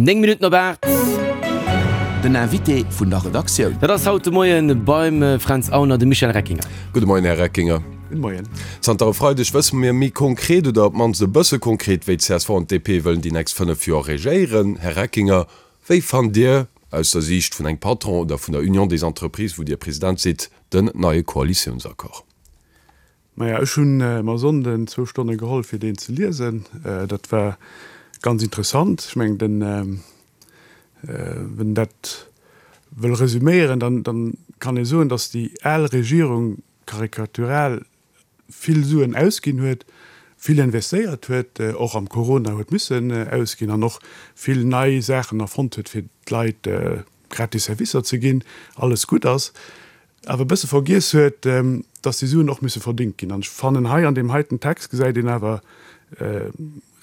9 Minutten op 8. Den Invité vun der Redaktioun. Dat ass haut de Moien beim Fränz Aulner de Michel Reckinger. Gudde Moien, Här Reckinger. Gudde Moien. Zanter e Freideg wësse mir méi konkret, oder op d'mannst e bësse konkret, wéi csv an d'DP wëllen déi nächst 5 Joer regéieren. Här Reckinger, wéi fannt Dir, aus der Siicht vun engem Patron oder vun der Union des Entreprises, wou Dir President sidd, den neie Koalitiounsaccord? Maja, ech hunn mer Sonnden zwou Stonne geholl fir deen ze liesen. Dat war ganz interessant. Ech mengen den, wenn een dat wëll resüméieren, dann dann kann ee soen, datt déi al Regierung karikatural vill Suen ausginn huet, vill investéiert huet, och am Corona huet missen ausginn an och vill nei Saachen erfonnt huet fir d'Leit gratis Servicer ze ginn, alles gutt ass. awer e bësse vergiess huet, dass déi Suen och musse verdingt ginn. An ech fannen, hei an deem heiten Text gesäit een awer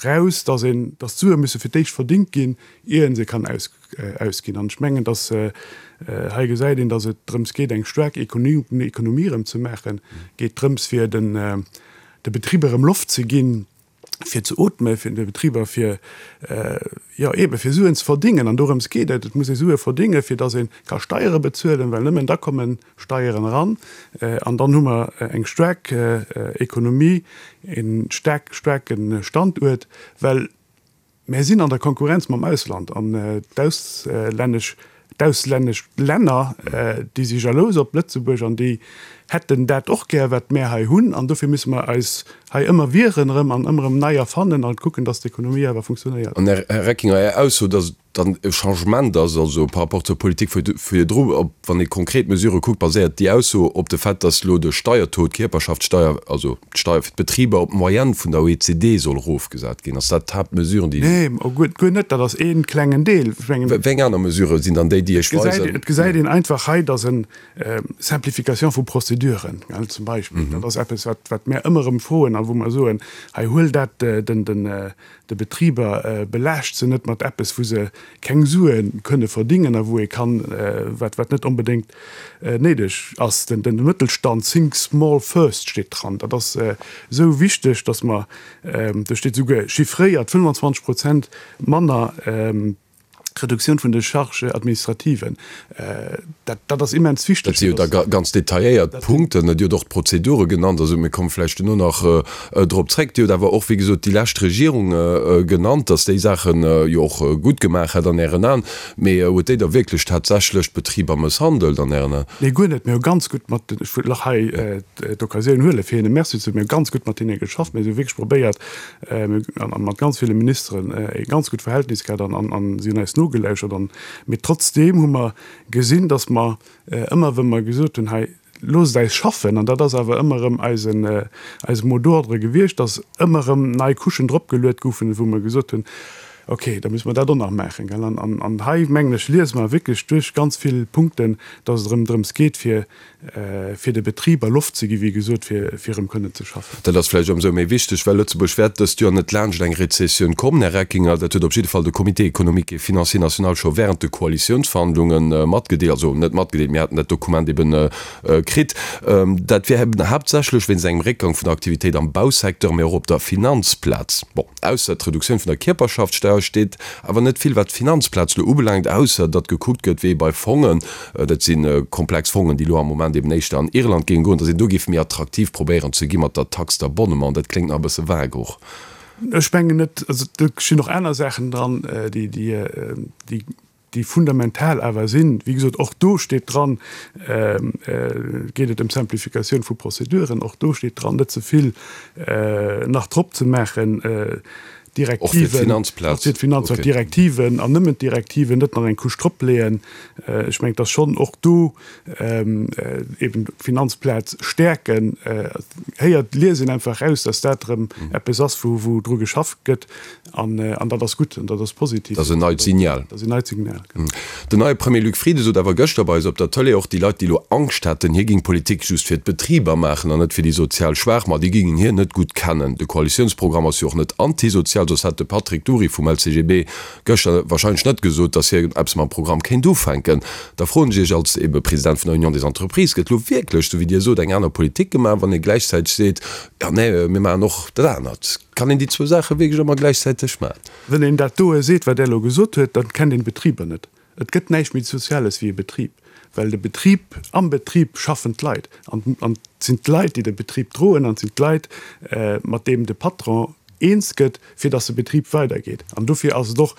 raus, dass een, dass d'Sue musse fir d'éischt verdingt ginn, ier ee se kann ausginn. An ech mengen, dass hei gesäit een, dass et drëms geet, eng staark Ekonomie erëm ze maachen, geet drëms, fir de Betriber erëm Loft ze ginn, fir ze ootmen, fir de Betriber fir, jo eebe fir Suen ze verdingen. An dorëms geet et. Et muss ee Sue verdingen, fir datt ee ka Steiere bezuelen, well nëmmen da komme Steieren eran. An dann hu mer eng staark Ekonomie, e staark, staarke Standuert, well Mär sinn an der Konkurrenz mam Ausland an d'auslännesch, d'auslännesch Länner, déi si jalous op Lëtzebuerg an déi hätten dat och gär, wat mär hei hunn. An dofir musse mer eis hei ëmmer wieren erëm an ëmmer erëm nei erfannen an kucken, dass d'Ekonomie awer funktionéiert. An, Här Reckinger, Är Ausso, dass et dann e Changement ass, also par rapport zur Politik virdru, op wann ee konkret Mesurë kuckt, baséiert déi Ausso op de Fait, dass elo de Steiertaux, d'Kierperschaftssteier, also d'Steier fir d'Betriber op d'Moyenne vun der OECD soll erofgesat ginn. Ass dat d'Haaptmesure, déi. Nee, guer net. Dat ass ee klengen Deel. Ech mengen. Wéi eng aner Mesurë sinn dann déi, déi Iech weisen. Et gesäit een einfach hei, dass en Simplification vu Prozeduren, zum Beispill, dat ass eppes, wat, wat mär ëmmer erëm froen a wou mer soen, hei huel dat den, den, de Betriber, belaascht se net mat eppes, wou se keng Sue kënne verdingen a wou ee kann, wat wat net onbedéngt néideg ass. Den den Mëttelstand, think small first steet dran. Dat ass esou wichteg, datt mer, do steet esouguer chiffréiert, 25 Prozent manner Reduktioun vun de Charges administrativen. Dat dat ass immens wichteg. Dat si jo da ganz detailléiert Punkten. Dir hutt och d'Prozedure genannt. Also mir komme vläicht duerno nach drop zréck. Dir hutt awer och, wéi gesot, déi lescht Regierung genannt, datt déi Saache jo och gutt gemaach hätt an Ären Aen. Mee huet déi da wierklech tatsächlech d'Betriber mësshandelt an Ären Aen? Nee, guer net. Mir hu ganz gutt mat den, ech wëll och hei d'Occasioun huelen, fir hinne Merci ze soen, mir hu ganz gutt mat hinne geschafft. Mir hu wierklech probéiert, mir hu mat ganz ville Ministeren e ganz gutt Verhältnis gehat an an si hunn eis nogelauschert. An, mee trotzdeem hu mer gesinn, datt mer ëmmer, wa mer gesot hunn, hei loosst eis schaffen, an dat ass awer ëmmer erëm eisen, eise Mot d'ordre gewiescht, datt ëmmer erëm nei Couchen dropgeluet goufen, wou mer gesot hunn, okay, da musse mer dat och nach maachen, gell. An, an hei, mengen ech, liese mer wierklech duerch ganz vill Punkten, datt et erëm drëms geet, fir fir de Betriber Loft ze gi wéi gesot, fir fir erëm kënnen ze schaffen. Dat ass vläicht ëmsou méi wichteg, well Lëtzebuerg wäert dëst Joer net laanscht eng Rezessioun kommen, Här Reckinger. Dat huet op jidde Fall de Comité économique et financier national scho während de Koalitiounsverhandlunge matgedeelt, also net matgedeelt, mir haten dat Dokument eben kritt. Dat wier eben haaptsächlech wéinst engem Réckgang vun der Aktivitéit am Bausecteur, mee och op der Finanzplaz. Bon, ausser d'Reduktioun vun der Kierperschaftssteuer steet awer net vill, wat d'Finanzplaz elo ubelaangt, ausser datt gekuckt gëtt, wéi ee bei Fongen, Dat si komplex Fongen, déi elo am Moment eben éischter an Irland géinge goen, datt een do géif méi attraktiv probéieren ze gi mat der Taxe d'abonnement. Dat kléngt nach e bësse vague och. Ech mengen net. Also do stinn och aner Saachen dran, déi, déi, déi fundamental awer sinn. Wéi gesot, och do steet dran, geet et ëm d'Simplificatioun vu Prozeduren. Och do steet dran, net ze vill nach drop ze maachen. Och fir d'Finanzplaz. Och fir d'Finanzplaz, d'Direktiven an nëmmen d'Direktiven, net nach eng Couche drop leeën. Ech mengen, dass schonn och do eben d'Finanzplaz stäerken. Héiert, liest een einfach eraus, dass dat erëm eppes ass, wou, wou dru geschafft gëtt. An, an dat ass gutt an dat ass positiv. Dat ass en neit Signal. Dat ass en neit Signal, genau. Den neie Premier Luc Frieden sot awer gëschter bei eis op der Tëlee, och déi Leit, déi elo Angscht hätten, hie géing Politik just fir d'Betriber maachen an net fir déi sozial Schwaach, ma déi géingen hien net gutt kennen. De Koalitiounsprogramm ass jo och net antisozial. sozial, soss hätt de Patrick Dury vum LCGB gëschter wahrscheinlech net gesot, datt hien eppes mam Programm kéint ufänken. Da froen ech Iech als ebe President vun der Union des Entreprises, Gëtt elo wierklech, esou wéi Dir sot, eng aner Politik gemaach, wann ee gläichzäiteg seet, jo nee, mir maachen och dat anert? Kann een déi zwou Saache wierklech ëmmer gläichzäiteg maachen? Wann een dat doe seet, wat Der elo gesot huet, dann kennt een d'Betriber net. Et gëtt näischt méi Soziales wéi e Betrib, well de Betrib, am Betrib schaffen d'Leit an an et sinn d'Leit, déi de Betrib droen an et sinn d'Leit, mat deem de Patron eens gëtt, fir datt de Betrib weidergeet. An dofir ass et och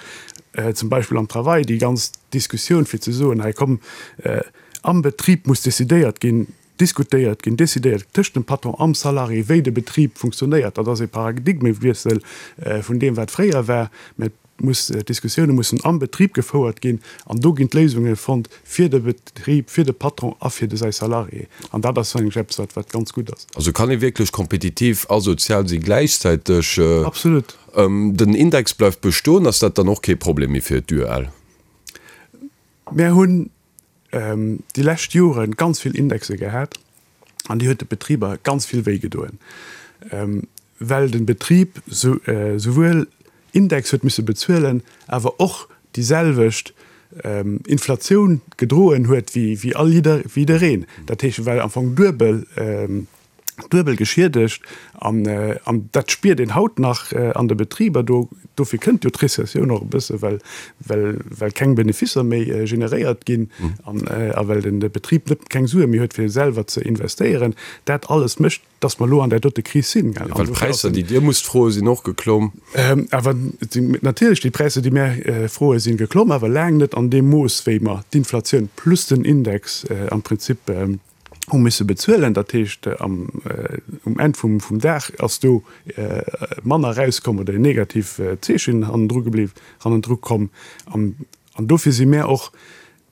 zum Beispill am Travail déi ganz Diskussioun, fir ze soen, hei komm, am Betrib muss decidéiert ginn, diskutéiert ginn, decidéiert tëscht dem Patron am Salarié, wéi de Betrib funktionéiert. Dat ass e Paradigmewiessel vun deem, wat fréier war. Mä et muss, d'Diskussioune mussen am Betrib gefouert ginn an do ginn d'Léisunge fonnt fir de Betrib, fir de Patron a fir de säi Salarié. An dat ass, mengen ech, eppes, wat, wat ganz gutt ass. Also kann ee wierklech kompetitiv a sozial si gläichzäiteg? Absolut. Den Index bleift bestoen. Ass dat dann och kee Problem méi fir d'UEL? Mär hunn déi lescht Jore ganz vill Indexe gehat an déi huet de Betriber ganz vill wéi gedoen, well de Betrib souwuel Index huet misse bezuelen, awer och déi selwecht Inflatioun gedroen huet wéi all jiddereen. Dat heescht, e war am Fong duebel. duebel geschiedegt an an dat spiert een haut nach an de Betriber. Do dofir kënnt jo d'Rezessioun och e bësse well well well keng Benefisser méi generéiert ginn an a well den de Betrib net keng Sue méi huet fir selwer ze investéieren. Dat alles mécht, datt mer elo an där dote Kris sinn. Well d'Präisser déi Dir musst froe sinn och geklomm. Awer natierlech déi Präisser déi mär froe sinn geklomm, awer laang net an deem Mooss wéi mer d'Inflatioun plus den Index am Prinzip hu misse bezuelen. Dat heescht, am, um Enn vum, vum Dag ass do manner erauskomm oder en negativ Zeechen hannendru gebliw, hannendru komm. An, an dofir si mär och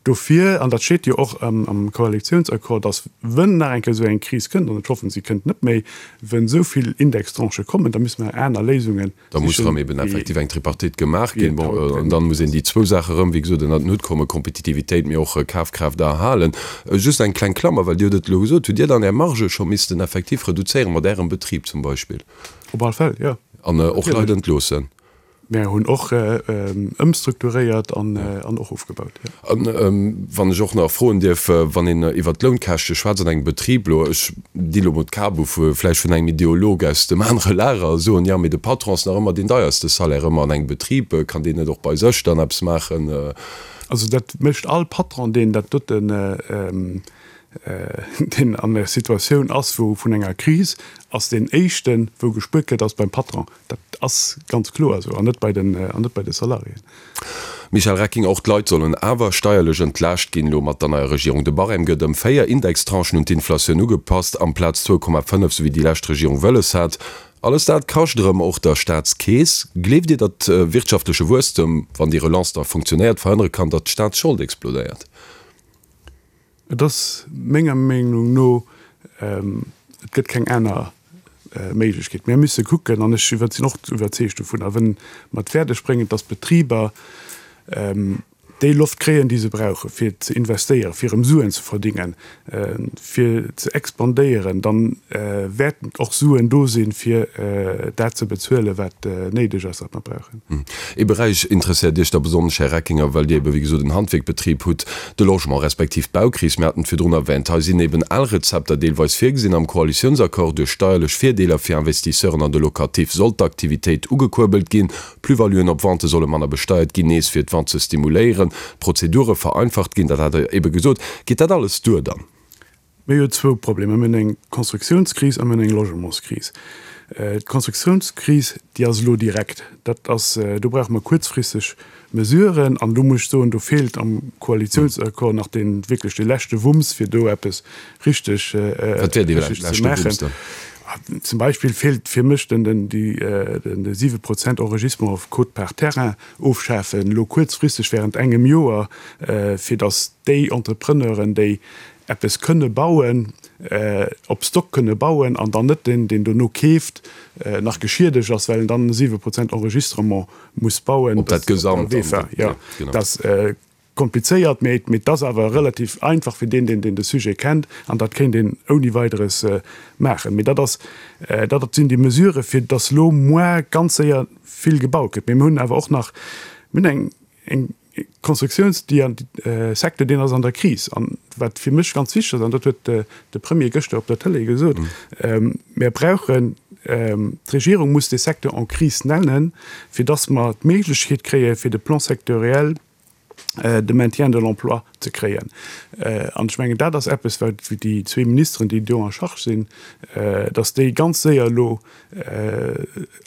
dofir, an dat steet jo och am, am Koalitionsaccord, dass, wënn nach eng Kéier esou eng Kris kënnt, an ech hoffen, si kënnt net méi, wënn esou vill Indextranchë kommen, da müsse mer aner Léisungen Da muss erëm eben effektiv eng Tripartite gemaach ginn. Bon, an dann muss een déi zwou Saache erëm, wéi gesot, ënnert den Hutt kommen, Kompetitivitéit, mee och Kafkraaft erhalen. Just eng kleng Klammer, well Dir hutt et elo gesot, Hutt Dir dann Är Marge scho missten effektiv reduzéieren, mat Ärem Betrib zum Beispill? Op all Fäll, jo. An och Leit entloossen? Mär hunn och ëmstrukturéiert an och ofgebaut, jo. An wann ech och nach froen dierf, wann een iwwert d'Lounkäschte schwätzt an engem Betrib elo, ech di lo mol d'Kap u vu vläicht vun engem Ideolog aus dem anere Lager, soen, jo, mee de Patron ass nach ëmmer deen deierste Salaire ëmmer an engem Betrib, kann deen net och bei sech dann eppes maachen? Also dat mécht all Patron, deen dat doten, deen an der Situatioun ass wou vun enger Kris, ass deen éischten, wou gespuert gëtt, ass beim Patron. Dat ass ganz kloer esou, an net bei den, an net bei de Salariéen. Michel Recking, Och d'Leit sollen awer steierlech entlaascht ginn elo mat der neier Regierung. De Barème gëtt ëm 4 Indextranchen un d'Inflatioun ugepasst, amplaz 2,5, sou wéi déi lescht Regierung wëlles hat. Alles dat kascht erëm och der Staatskeess. Gleeft Dir, datt wirtschaftleche Wuesstem, wann déi Relance da funktionéiert, verhënnere kann, datt d'Staatsschold explodéiert? Et ass menger Meenung no, et gëtt keng aner Méiglechkeet. Mir musse kucken, an ech sinn och iwwerzeegt dovunner, wënn mer et fäerdeg bréngen, datt d'Betriber déi Loft kréien, déi se brauchen, fir ze investéieren, fir erëm Suen ze verdingen, fir ze expandéieren, da wäerten och Suen do sinn, fir dat ze bezuelen, wat néideg ass, wat mer brauchen. Ee Beräich interesséiert Iech da besonnesch, Här Reckinger, well Dir ebe wéi gesot en Handwierkbetrib hutt, de Logement respektiv d'Baukris. Mir haten et virdrun erwähnt. Hei sinn eben al Rezepter deelweis virgesinn am Koalitiounsaccord. Duerch steierlech Virdeeler fir Investisseuren an de Locatif soll d'Aktivitéit ugekuerbelt ginn. Plus-valuen op Vente solle manner besteiert ginn, nees fir d'Vente ze stimuléieren. D'Prozedure vereinfacht ginn, dat hat Der ebe gesot. Geet dat alles duer dann? Mir hu zwou Problemer, Mir hunn eng Konstruktiounskris a mir hunn eng Logementskris. D'Konstruktiounskris, déi ass elo direkt. Dat ass, do brauche mer kuerzfristeg Mesuren. An do muss ech soen, do feelt am Koalitiounsaccord nach dee wierklech dee leschte Wumms, fir do eppes richteg Wat wär dee richteg ze leschte Wumms maachen. dann? Zum Beispill feelt fir mech den, den, déi, den, de 7 Prozent Enregistrement auf quote-part terrain ofschafen, elo kuerzfristeg während engem Joer, fir datt déi Entrepreneuren, déi eppes kënne bauen, op Stock kënne bauen an dann net deen, deen dono keeft, nach geschiedegt ass, well en dann 7 Prozent Enregistrement muss bauen. Op dat Gesamt dann. Jo, dat ass komplizéiert, mee et ass awer relativ einfach fir deen, deen de Sujet kennt an dat kéint een ouni Weideres maachen. Mee dat ass, dat sinn déi Mesurë fir dass elo muar ganz séier. vill gebaut gëtt. Mee mir hunn awer och nach, mir hunn eng, eng Constructiouns, déi an, Secteur, deen ass an der Kris. An wat fir mech ganz wichteg ass, an dat huet de Premier gëschter op der Tëlee gesot, Mir brauchen, d'Regierung muss dee Secteur en crise nennen, fir dass mer d'Méiglechkeet kréie fir de Plan sectoriel de maintien de l'emploi ze kréien. An ech mengen, dat ass eppes, wat déi zwee Ministeren, déi do en charge sinn, dass déi ganz séier elo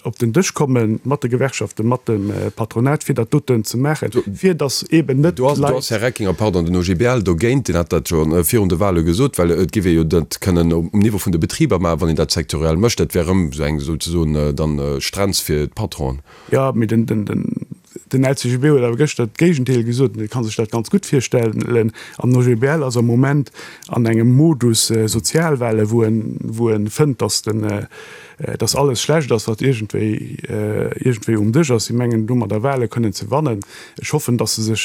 op den Dësch komme mat de Gewerkschaften, mat dem Patronat, fir dat doten ze maachen, fir dass eeben net d'Leit. Do ass, Här Reckinger, pardon, den OGBL dogéint, deen hat dat jo virun de Wahle gesot, well et géif ee jo dat kënnen um Niveau vun de Betriber maachen, wann een dat sektoriell mécht. Dat wär erëm esou eng souzesoen dann Strenz fir d'Patronen. Jo, mee den Den LCGB huet awer gëschter d'Géigendeel gesot, en ka sech dat ganz gutt virstellen. An den OGBL ass am Moment an engem Modus Sozialwahlen, wou en, wou en fënnt, datt den, datt alles schlecht ass, wat iergendwéi, iergendwéi um Dësch ass. Si mengen domadder Wahle kënnen ze wannen. Ech hoffen, datt se sech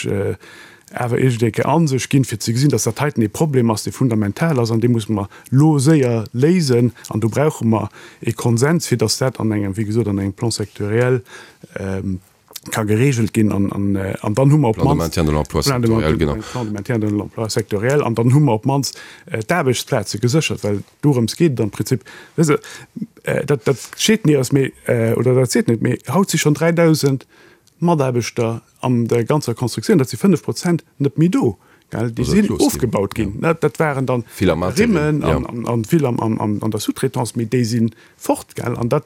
awer iergendeng Kéier a sech ginn, fir ze gesinn, datt dat heiten ee Problem ass, dee fundamental ass an dee musse mer lo séier léisen. An do brauche mer ee Konsens, fir datt dat an engem, wéi gesot, an engem Plan sectoriel ka geregelt ginn. An an dann hu mer op d'mannst. Plan de maintien de l'emploi sectoriel, genau. Plan de maintien de l'emploi sectoriel. An dann hu mer op d'mannst d'Aarbechtsplaze geséchert, well dorëms geet et am Prinzip. Wësst Der, dat, dat steet nirgends, mee, oder dat seet net, mee haut si schonn 3.000 Mataarbechter an der ganzer Constructioun, dat si 5 Prozent, net méi do. Gell, déi sinn ofgebaut ginn. Dat waren dann Rimmen an vill an der Sous-traitance, mee déi si fort. Gell, an dat,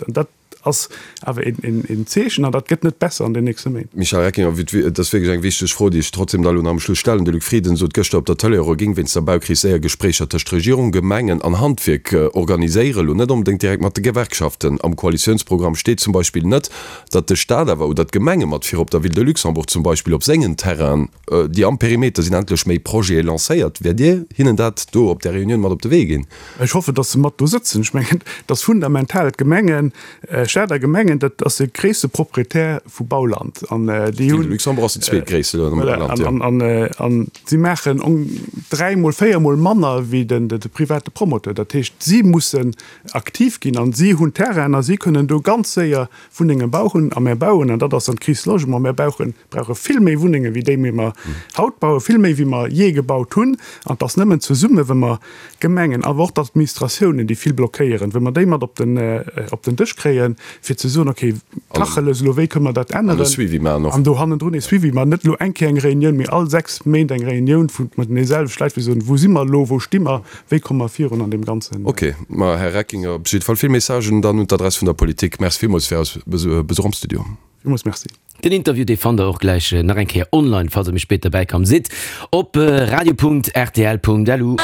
dat ass awer een Zeechen an dat gëtt net besser an den nächste Méint. Michel Reckinger, Et ass wierklech eng wichteg Fro, déi ech trotzdem da elo nach am Schluss stellen. De Luc Frieden sot gëschter op der Tëlee, e géing wéinst der Baukris séier Gespréicher tëscht Regierung, Gemengen an Handwierk organiséieren, elo net onbedéngt direkt mat de Gewerkschaften. Am Koalitiounsprogramm steet zum Beispill net, datt de Staat awer oder d'Gemenge mat virop der Ville de Luxembourg zum Beispill op sengen Terrainen, déi am Perimeter sinn, endlech méi Projete lancéiert. Wäert Dir hinnen dat do op där Reunioun mat op de Wee ginn? Ech hoffen, datt se mat do sëtzen. Ech mengen, et ass fundamental, d'Gemengen, Staat a Gemengen, dat ass de gréisste Proprietär vu Bauland an déi hunn. D'Ville de Luxembourg ass déi zweetgréisste am Land, jo. An si maachen dräimol, véiermol manner wéi de private Promoteur. Dat heescht, si mussen aktiv ginn an si hunn Terrainen a si kënnen do ganz séier Wunnenge bauchen. A mär bauen, an dat ass dann d'Crise Logement, mär bauchen, brauche vill méi Wunnenge wéi déi méi mer haut bauen, vill méi wéi mer jee gebaut hunn. An et ass nëmmen zesumme wa mer d'Gemengen, awer och d'Administratiounen, déi vill blockéieren, wa mer déi mat op den, op den Dësch kréien, fir ze soen, okay, Tacheles elo, wéi kënne mer dat änneren? An e Suivi maachen och. An do hannendrun e Suivi maachen, net elo eng Kéier eng Reunioun, mee all 6 Méint eng Reunioun vu mat deene selwechte Leit, fir ze soen, wou si mer elo, wou sti mer, Wéi komme mer virun an deem Ganzen? Ok, ma Här Reckinger, op jidde Fall vill Messagen dann un d'Adress vun der Politik. Merci villmools fir eis Besuch am Studio. Villmools Merci. Den Interview dee fannt der och gläich nach eng Kéier online, falls der méi spéit derbäi komm sidd, op radio.rtl.lu.